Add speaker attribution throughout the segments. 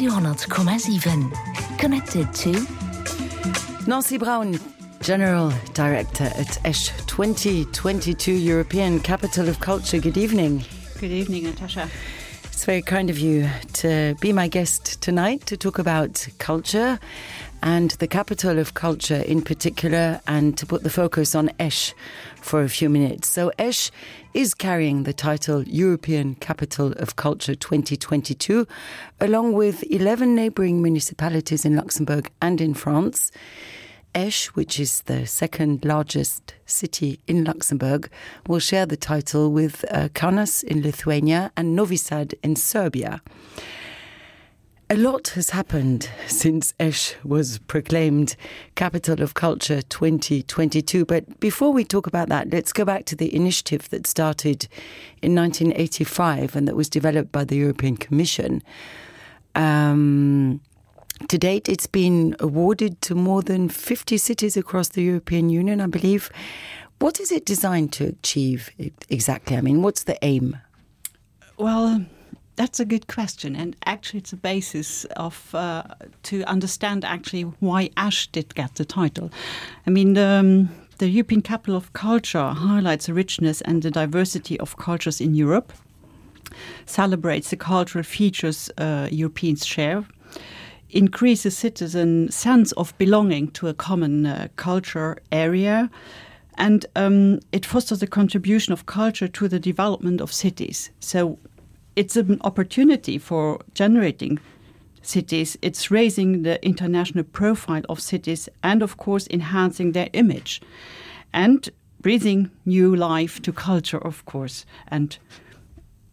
Speaker 1: 200,7. Connected to
Speaker 2: Nancy Brown, General Director at ESH 2022 European Capital of Culture. Good evening.
Speaker 3: Good evening, Natasha.
Speaker 2: It's very kind of you to be my guest tonight to talk about culture and the capital of culture in particular, and to put the focus on ESH for a few minutes. So ESH is carrying the title European Capital of Culture 2022, along with 11 neighbouring municipalities in Luxembourg and in France. ESH, which is the second largest city in Luxembourg, will share the title with Kaunas in Lithuania and Novi Sad in Serbia. A lot has happened since ESH was proclaimed Capital of Culture 2022. But before we talk about that, let's go back to the initiative that started in 1985 and that was developed by the European Commission. To date, it's been awarded to more than 50 cities across the European Union, I believe. What is it designed to achieve exactly? I mean, what's the aim?
Speaker 3: Well, that's a good question, and actually it's a basis of to understand actually why ESH did get the title. I mean, the European Capital of Culture highlights the richness and the diversity of cultures in Europe, celebrates the cultural features Europeans share, increases citizen sense of belonging to a common culture area, and it fosters the contribution of culture to the development of cities. So it's an opportunity for generating cities. It's raising the international profile of cities and, of course, enhancing their image and breathing new life to culture, of course. And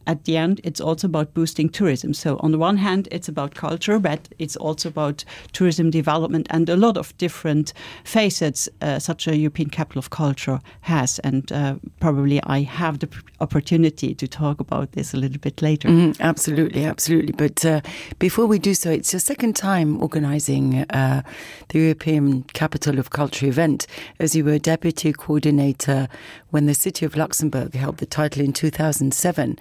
Speaker 3: at the end, it's also about boosting tourism. So on the one hand, it's about culture, but it's also about tourism development and a lot of different facets such a European Capital of Culture has. And probably I have the opportunity to talk about this a little bit later.
Speaker 2: Absolutely, absolutely. But before we do so, it's your second time organising the European Capital of Culture event, as you were deputy coordinator when the city of Luxembourg held the title in 2007.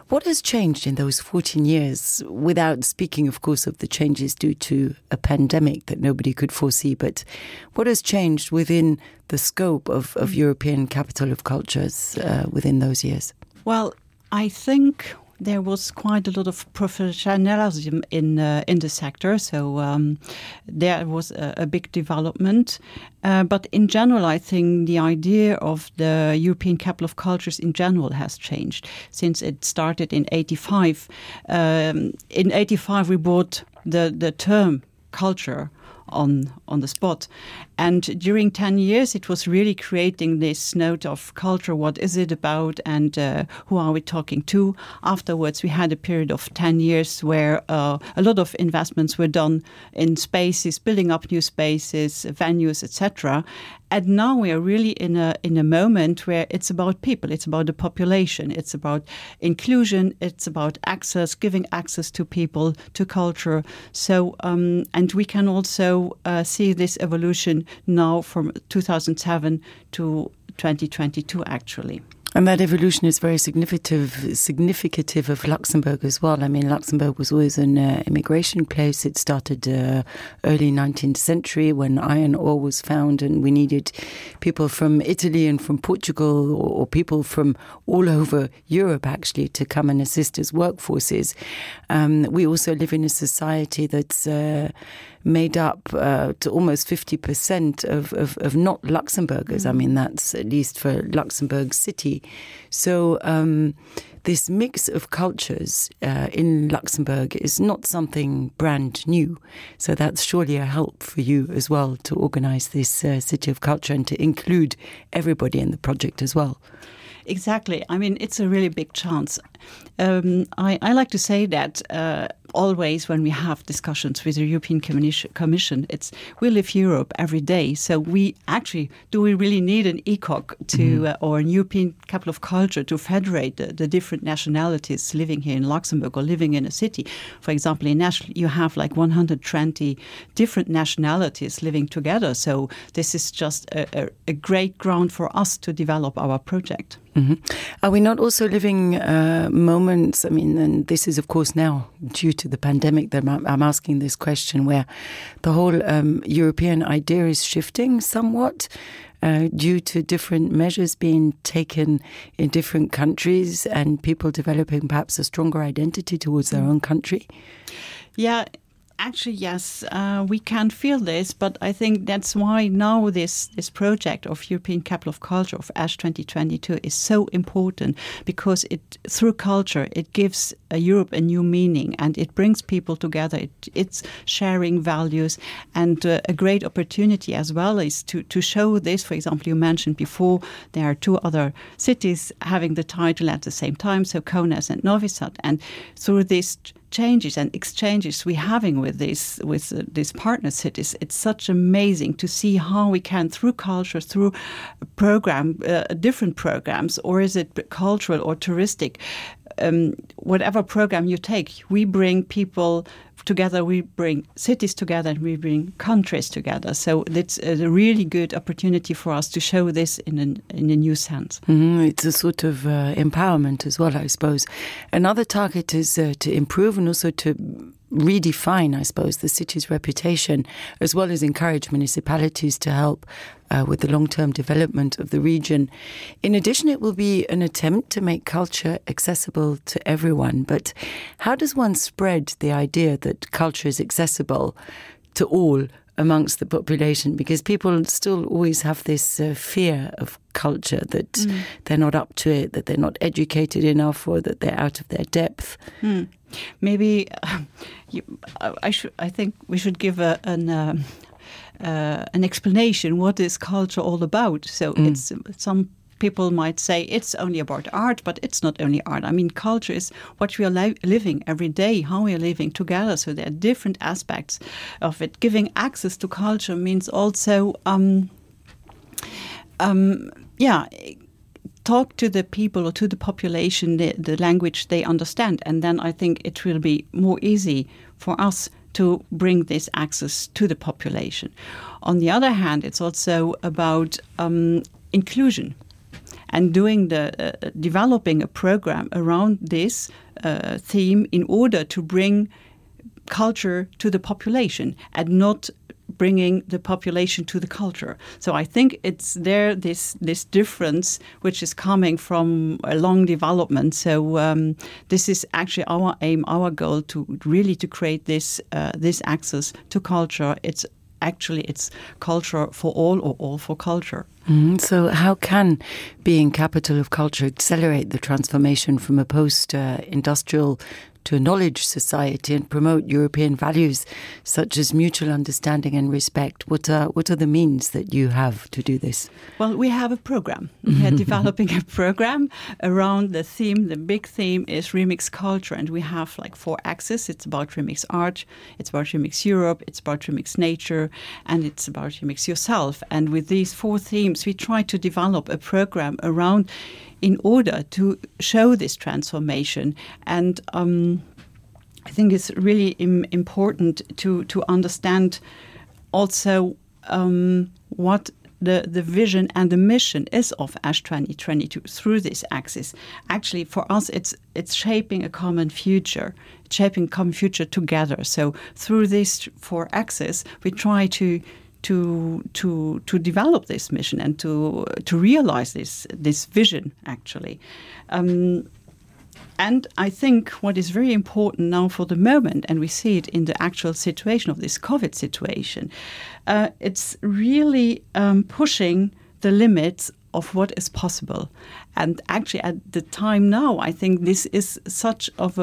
Speaker 2: What has changed in those 14 years, without speaking, of course, of the changes due to a pandemic that nobody could foresee, but what has changed within the scope of European Capital of Cultures within those years?
Speaker 3: Well, I think there was quite a lot of professionalism in the sector, so there was a big development. But in general, I think the idea of the European Capital of Cultures in general has changed since it started in 85. In 85, we brought the term culture on the spot. And during 10 years, it was really creating this note of culture. What is it about and who are we talking to? Afterwards, we had a period of 10 years where a lot of investments were done in spaces, building up new spaces, venues, etc. And now we are really in a moment where it's about people, it's about the population, it's about inclusion, it's about access, giving access to people, to culture. So, and we can also see this evolution now from 2007 to 2022, actually.
Speaker 2: And that evolution is very significative of Luxembourg as well. I mean, Luxembourg was always an immigration place. It started early 19th century when iron ore was found, and we needed people from Italy and from Portugal or people from all over Europe, actually, to come and assist as workforces. We also live in a society that's made up to almost 50% of not Luxembourgers. I mean, that's at least for Luxembourg City. So this mix of cultures in Luxembourg is not something brand new. So that's surely a help for you as well to organise this City of Culture and to include everybody in the project as well.
Speaker 3: Exactly. I mean, it's a really big chance. I like to say that always when we have discussions with the European Commission, we live Europe every day. So we really need an ECOC to or a European Capital of Culture to federate the different nationalities living here in Luxembourg or living in a city. For example, in ESH, you have like 120 different nationalities living together. So this is just a great ground for us to develop our project.
Speaker 2: Are we not also living moments, I mean, and this is of course now due to the pandemic that I'm asking this question, where the whole European idea is shifting somewhat due to different measures being taken in different countries and people developing perhaps a stronger identity towards their own country?
Speaker 3: Yeah. Actually, yes, we can feel this, but I think that's why now this project of European Capital of Culture, of ASH 2022, is so important, because through culture, it gives Europe a new meaning, and it brings people together. It's sharing values, and a great opportunity as well is to show this. For example, you mentioned before, there are 2 other cities having the title at the same time, so Kaunas and Novi Sad, and through this changes and exchanges we're having with these partner cities, it's such amazing to see how we can, through culture, through different programs, or is it cultural or touristic, whatever program you take, we bring people together, we bring cities together, and we bring countries together. So it's a really good opportunity for us to show this in a new sense.
Speaker 2: It's a sort of empowerment as well, I suppose. Another target is to improve and also to redefine, I suppose, the city's reputation, as well as encourage municipalities to help with the long-term development of the region. In addition, it will be an attempt to make culture accessible to everyone. But how does one spread the idea that culture is accessible to all amongst the population? Because people still always have this fear of culture, that they're not up to it, that they're not educated enough, or that they're out of their depth.
Speaker 3: Maybe I think we should give an explanation. What is culture all about? So it's some people might say it's only about art, but it's not only art. I mean, culture is what we are living every day, how we are living together. So there are different aspects of it. Giving access to culture means also, talk to the people or to the population the language they understand, and then I think it will be more easy for us to bring this access to the population. On the other hand, it's also about inclusion, and developing a program around this theme in order to bring culture to the population and not bringing the population to the culture. So I think it's this difference which is coming from a long development. So this is actually our aim, our goal, to really to create this access to culture. It's culture for all, or all for culture.
Speaker 2: So how can being capital of culture accelerate the transformation from a post-industrial to a knowledge society and promote European values such as mutual understanding and respect? What are the means that you have to do this?
Speaker 3: Well, we have a program. We are developing a program around the theme. The big theme is Remix Culture, and we have 4 axes. It's about Remix Art, it's about Remix Europe, it's about Remix Nature, and it's about Remix Yourself. And with these 4 themes, we try to develop a program around in order to show this transformation. And I think it's really important to understand also what the vision and the mission is of ASH 2022 through this axis. Actually, for us, it's shaping a common future, together. So through these 4 axes, we try to develop this mission and to realize this vision, actually. And I think what is very important now for the moment, and we see it in the actual situation of this COVID situation, it's really pushing the limits of what is possible. And actually at the time now, I think this is such of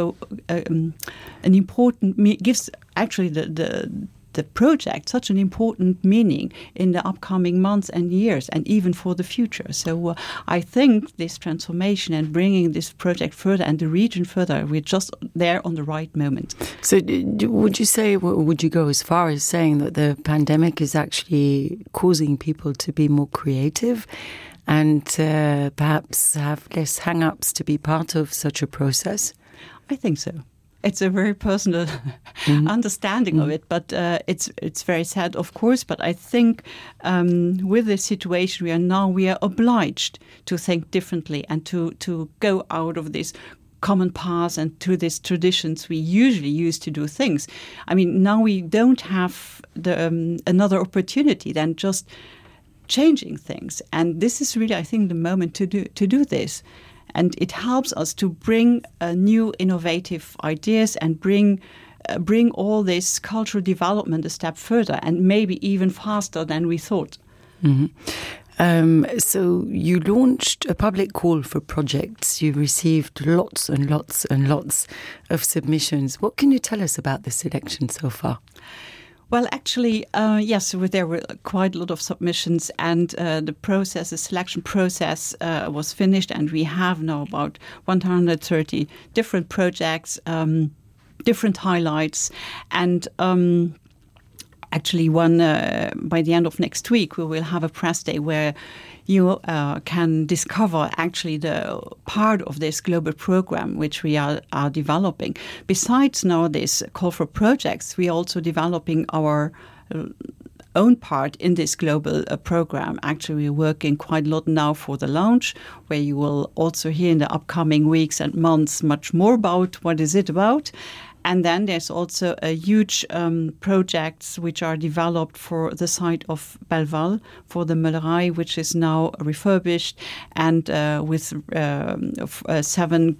Speaker 3: an important, gives actually the project such an important meaning in the upcoming months and years, and even for the future. So I think this transformation and bringing this project further and the region further, we're just there on the right moment.
Speaker 2: So would you go as far as saying that the pandemic is actually causing people to be more creative and perhaps have less hang-ups to be part of such a process?
Speaker 3: I think so. it's a very personal understanding of it, but it's very sad, of course. But I think with the situation we are obliged to think differently and to go out of this common paths and to these traditions we usually use to do things. I mean, now we don't have another opportunity than just changing things, and this is really, I think, the moment to do this. And it helps us to bring new innovative ideas and bring all this cultural development a step further and maybe even faster than we thought.
Speaker 2: Mm-hmm. So you launched a public call for projects. You received lots and lots and lots of submissions. What can you tell us about the selection so far?
Speaker 3: Well, actually, yes, there were quite a lot of submissions, and the selection process was finished, and we have now about 130 different projects, different highlights, and actually by the end of next week, we will have a press day where you can discover actually the part of this global program which we are developing. Besides now this call for projects, we are also developing our own part in this global program. Actually, we're working quite a lot now for the launch, where you will also hear in the upcoming weeks and months much more about what is it about. And then there's also a huge projects which are developed for the site of Belval, for the Meulerei, which is now refurbished, and with 7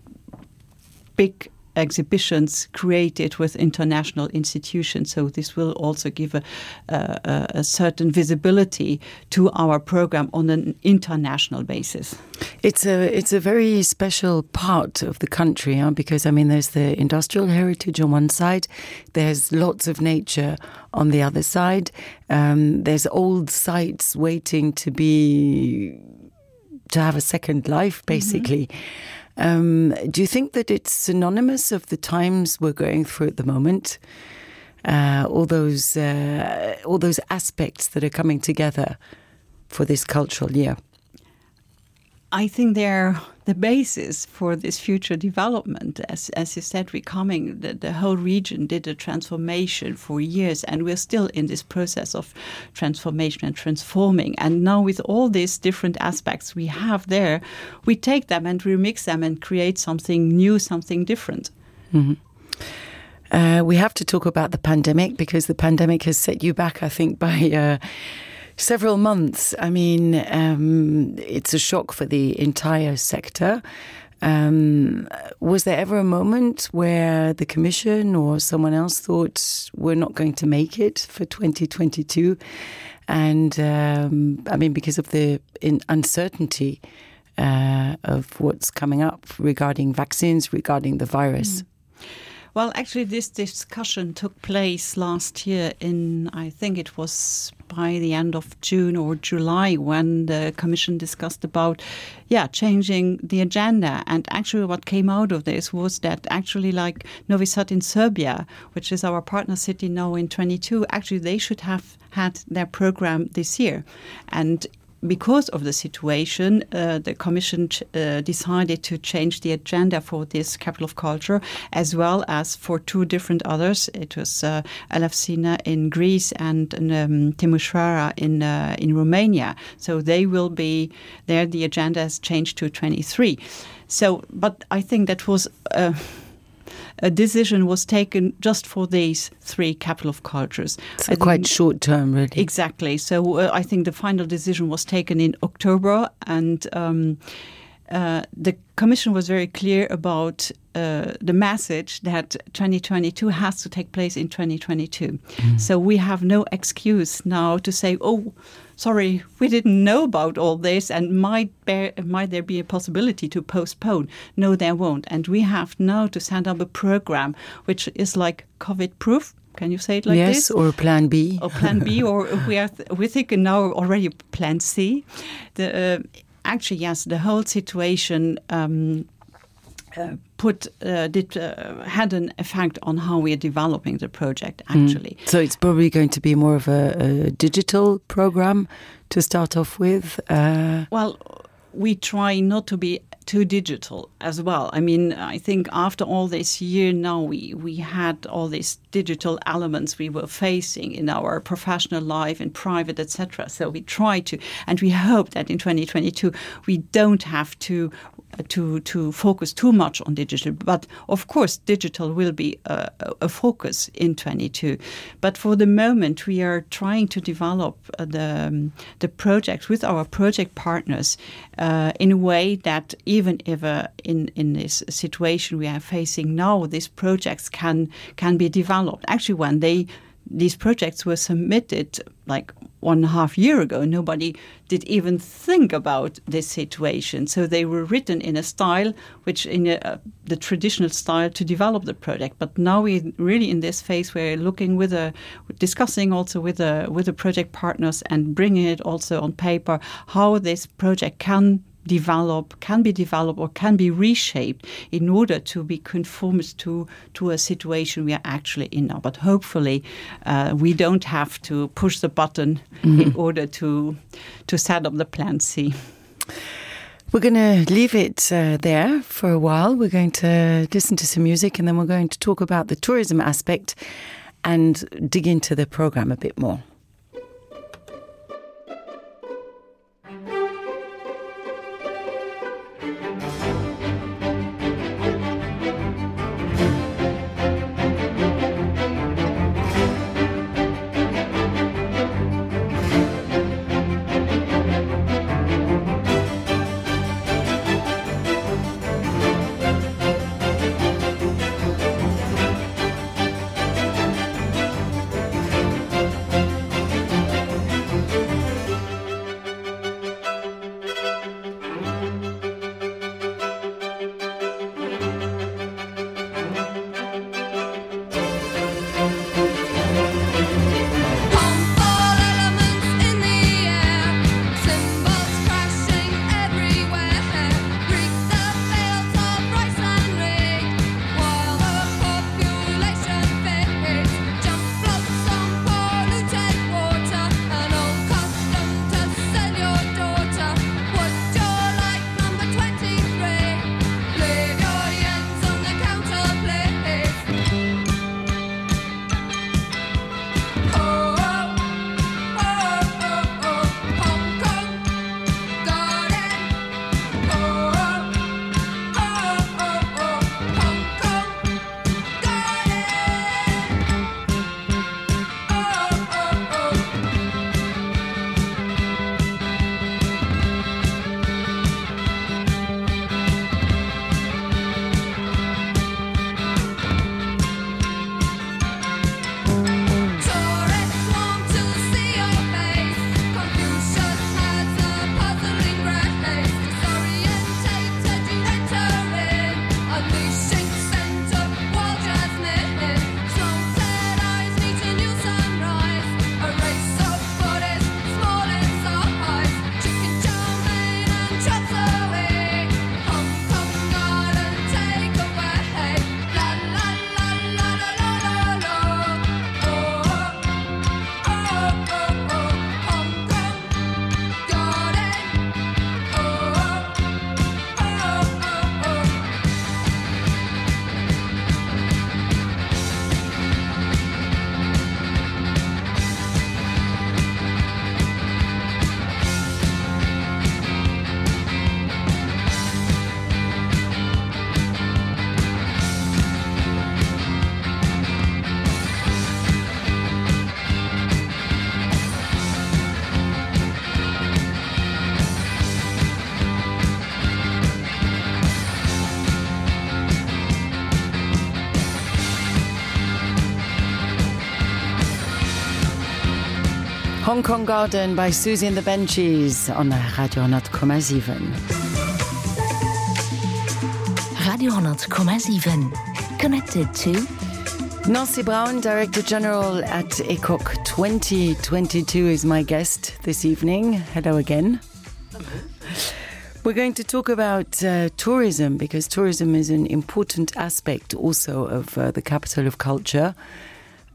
Speaker 3: big exhibitions created with international institutions. So this will also give a certain visibility to our program on an international basis.
Speaker 2: It's a very special part of the country, because, I mean, there's the industrial heritage on one side, there's lots of nature on the other side, there's old sites waiting to have a second life, basically. Mm-hmm. Do you think that it's synonymous of the times we're going through at the moment? All those aspects that are coming together for this cultural year.
Speaker 3: I think they're the basis for this future development. As you said, the whole region did a transformation for years, and we're still in this process of transformation and transforming. And now with all these different aspects we have there, we take them and remix them and create something new, something different.
Speaker 2: Mm-hmm. We have to talk about the pandemic, because the pandemic has set you back, I think, by several months. I mean, it's a shock for the entire sector. Was there ever a moment where the Commission or someone else thought we're not going to make it for 2022? And I mean, because of the uncertainty of what's coming up regarding vaccines, regarding the virus. Mm.
Speaker 3: Well, actually, this discussion took place last year I think it was by the end of June or July, when the Commission discussed about, changing the agenda. And actually what came out of this was that actually, like Novi Sad in Serbia, which is our partner city now in 22, actually they should have had their program this year. And because of the situation, the Commission decided to change the agenda for this capital of culture, as well as for 2 different others. It was Elefsina in Greece and Timișoara in Romania. So they will be there. The agenda has changed to 23. So, but I think that was a decision was taken just for these 3 capital of cultures.
Speaker 2: So quite short term, really.
Speaker 3: Exactly. So I think the final decision was taken in October, and the Commission was very clear about the message that 2022 has to take place in 2022. Mm. So we have no excuse now to say, oh, sorry, we didn't know about all this, and might there be a possibility to postpone? No, there won't. And we have now to set up a program which is like COVID-proof. Can you say it like this?
Speaker 2: Yes, or Plan B.
Speaker 3: Or Plan B, or we're thinking now already Plan C. Actually, yes, the whole situation had an effect on how we are developing the project, actually.
Speaker 2: So it's probably going to be more of a digital program to start off with?
Speaker 3: Well, we try not to be too digital as well. I mean, I think after all this year now, we had all these digital elements we were facing in our professional life, in private, etc. So we try to, and we hope that in 2022 we don't have to focus too much on digital. But of course, digital will be a focus in 22. But for the moment, we are trying to develop the project with our project partners in a way that even if in this situation we are facing now, these projects can be developed. Actually, when these projects were submitted like 1.5 years ago, nobody did even think about this situation. So they were written in a style which in the traditional style to develop the project. But now we're really in this phase where we're discussing also with the project partners and bringing it also on paper how this project can be developed or can be reshaped in order to be conformist to a situation we are actually in now. But hopefully we don't have to push the button in order to set up the plan C.
Speaker 2: We're going to leave it there for a while. We're going to listen to some music and then we're going to talk about the tourism aspect and dig into the program a bit more. Hong Kong Garden by Susie and the Benchies on Radio 100,7.
Speaker 1: Radio 100,7. Connected to
Speaker 2: Nancy Brown, Director General at ECOC 2022 is my guest this evening. Hello again. We're going to talk about tourism, because tourism is an important aspect also of the capital of culture.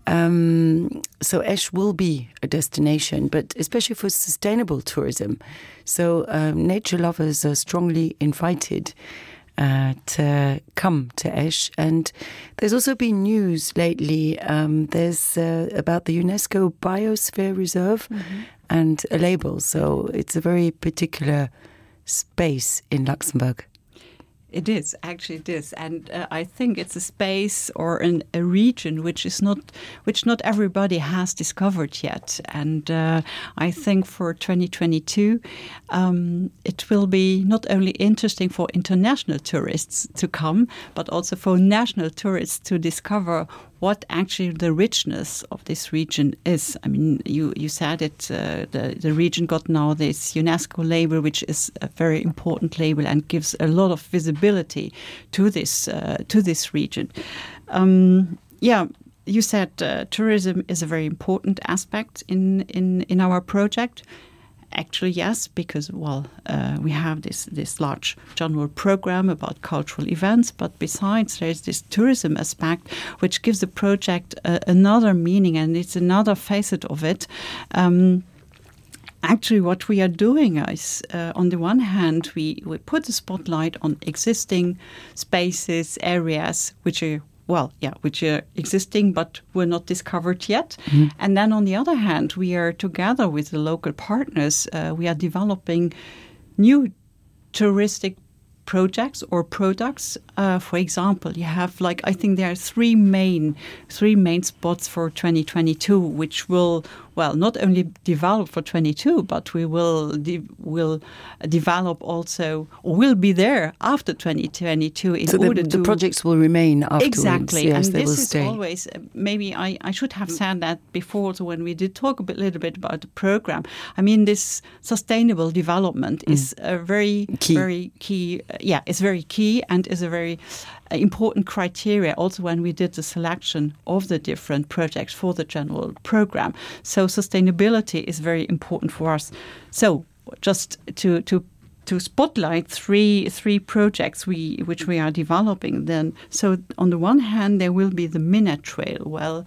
Speaker 2: So Esch will be a destination, but especially for sustainable tourism. So nature lovers are strongly invited to come to Esch. And there's also been news lately. There's about the UNESCO Biosphere Reserve and a label. So it's a very particular space in Luxembourg.
Speaker 3: It is, actually it is. And I think it's a space or a region which not everybody has discovered yet. And I think for 2022, it will be not only interesting for international tourists to come, but also for national tourists to discover what actually the richness of this region is. I mean, you said it, the region got now this UNESCO label, which is a very important label and gives a lot of visibility to this region. You said tourism is a very important aspect in our project. Actually, yes, because, we have this large general program about cultural events, but besides, there's this tourism aspect, which gives the project another meaning, and it's another facet of it. Actually, what we are doing is, on the one hand, we put the spotlight on existing spaces, areas, which are existing but were not discovered yet. And then on the other hand, we are together with the local partners, we are developing new touristic projects or products. For example, you have I think there are three main spots for 2022, which will not only develop for 22, but we will develop also, or will be there after 2022 in order to...
Speaker 2: the projects will remain afterwards.
Speaker 3: Exactly.
Speaker 2: Yes,
Speaker 3: and
Speaker 2: they will
Speaker 3: this is
Speaker 2: stay.
Speaker 3: Always, maybe I should have said that before, so when we did talk a little bit about the program. I mean, this sustainable development is a very key. It's very key and is a very important criteria also when we did the selection of the different projects for the general program. So sustainability is very important for us. So just to spotlight three projects which we are developing then. So on the one hand, there will be the Minette Trail. Well,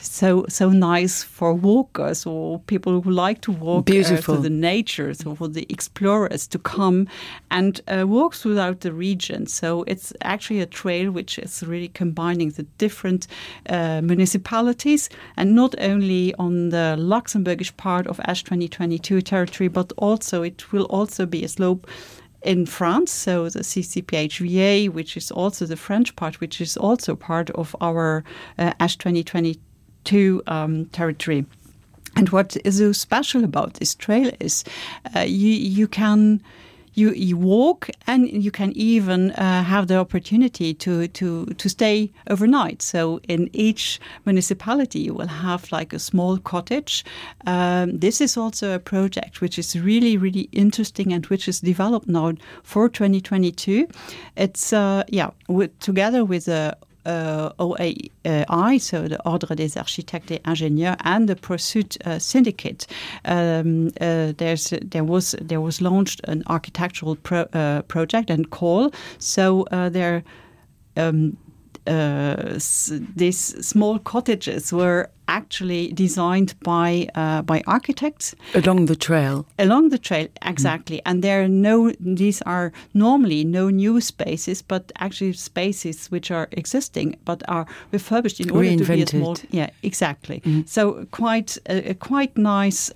Speaker 3: so nice for walkers or people who like to walk through the nature, so for the explorers to come and walk throughout the region. So it's actually a trail which is really combining the different municipalities, and not only on the Luxembourgish part of Esch 2022 territory, but also it will also be a slope in France, so the CCPHVA, which is also the French part, which is also part of our Esch 2022 territory. And what is so special about this trail is you can walk, and you can even have the opportunity to stay overnight. So in each municipality, you will have a small cottage. This is also a project which is really, really interesting and which is developed now for 2022. It's together with the OAI, so the Ordre des Architectes et Ingénieurs, and the Pursuit Syndicate. There was launched an architectural project and call. So these small cottages were actually designed by architects
Speaker 2: along the trail.
Speaker 3: Exactly. And these are normally no new spaces, but actually spaces which are existing but are refurbished in order to be a small. Yeah, exactly. So quite a nice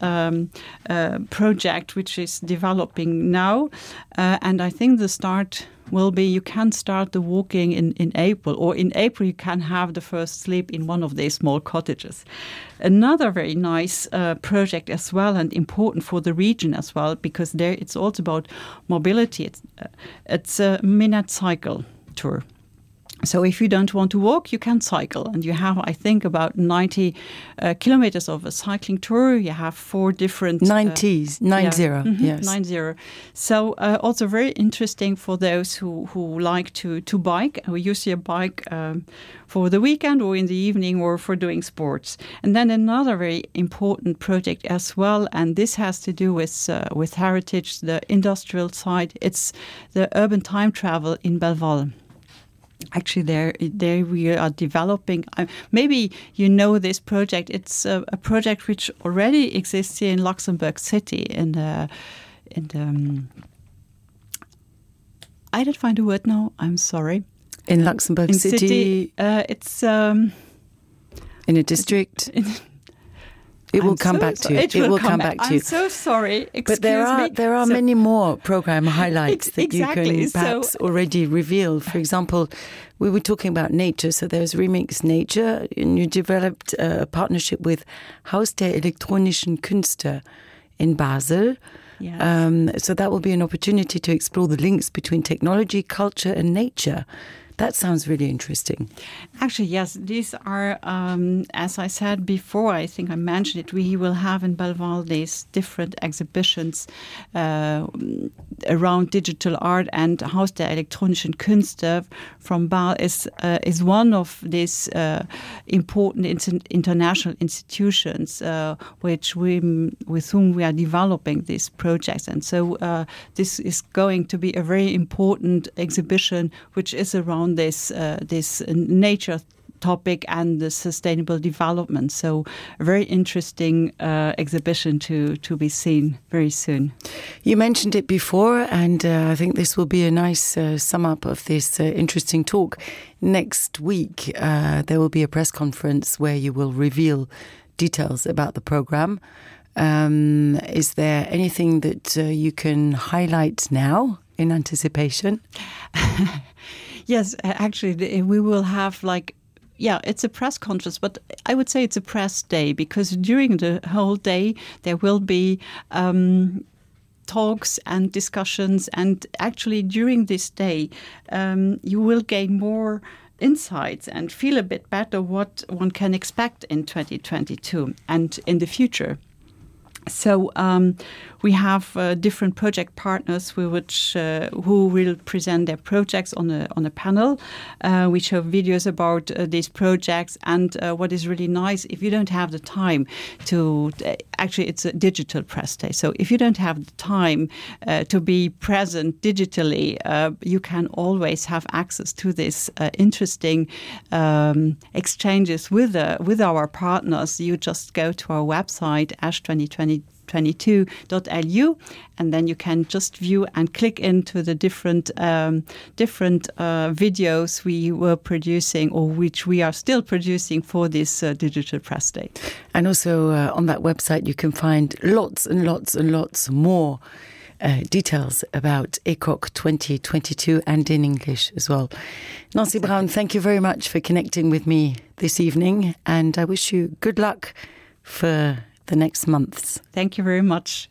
Speaker 3: project which is developing now, and I think the start will be, you can start the walking in April, or in April you can have the first sleep in one of these small cottages. Another very nice project as well, and important for the region as well, because there it's also about mobility. It's a Minette cycle tour. So if you don't want to walk, you can cycle. And you have, I think, about 90 kilometers of a cycling tour. You have 4 different...
Speaker 2: 90. Yes.
Speaker 3: 90. So also very interesting for those who like to bike, who use their bike for the weekend or in the evening or for doing sports. And then another very important project as well, and this has to do with heritage, the industrial side. It's the urban time travel in Belval. Actually, there we are developing. Maybe you know this project. It's a project which already exists here in Luxembourg City. I didn't find a word now. I'm sorry.
Speaker 2: In Luxembourg City,
Speaker 3: it's
Speaker 2: in a district. It will come back to you.
Speaker 3: It will come back
Speaker 2: to you.
Speaker 3: I'm so sorry. Excuse
Speaker 2: but there are many more program highlights that
Speaker 3: exactly.
Speaker 2: you can perhaps already reveal. For example, we were talking about nature. So there's Remix Nature, and you developed a partnership with Haus der elektronischen Künste in Basel.
Speaker 3: Yes.
Speaker 2: So that will be an opportunity to explore the links between technology, culture, and nature. That sounds really interesting.
Speaker 3: Actually, yes, these are, as I said before, I think I mentioned it, we will have in Belval these different exhibitions around digital art, and Haus der elektronischen Künste from Basel is one of these important international institutions with whom we are developing these projects. And so this is going to be a very important exhibition which is around this nature topic and the sustainable development. So a very interesting exhibition to be seen very soon.
Speaker 2: You mentioned it before, and I think this will be a nice sum up of this interesting talk. Next week, there will be a press conference where you will reveal details about the program. Is there anything that you can highlight now in anticipation?
Speaker 3: Yes, actually, we will have it's a press conference, but I would say it's a press day, because during the whole day there will be talks and discussions, and actually during this day you will gain more insights and feel a bit better what one can expect in 2022 and in the future. So we have different project partners who will present their projects on a panel. We show videos about these projects, and what is really nice, if you don't have the time to actually, it's a digital press day. So if you don't have the time to be present digitally, you can always have access to this interesting exchanges with our partners. You just go to our website, ash2022.lu, and then you can just view and click into the different videos we were producing, or which we are still producing for this digital press day.
Speaker 2: And also on that website you can find lots and lots and lots more details about ECOC 2022, and in English as well. Nancy Brown, thank you very much for connecting with me this evening, and I wish you good luck for the next months.
Speaker 3: Thank you very much.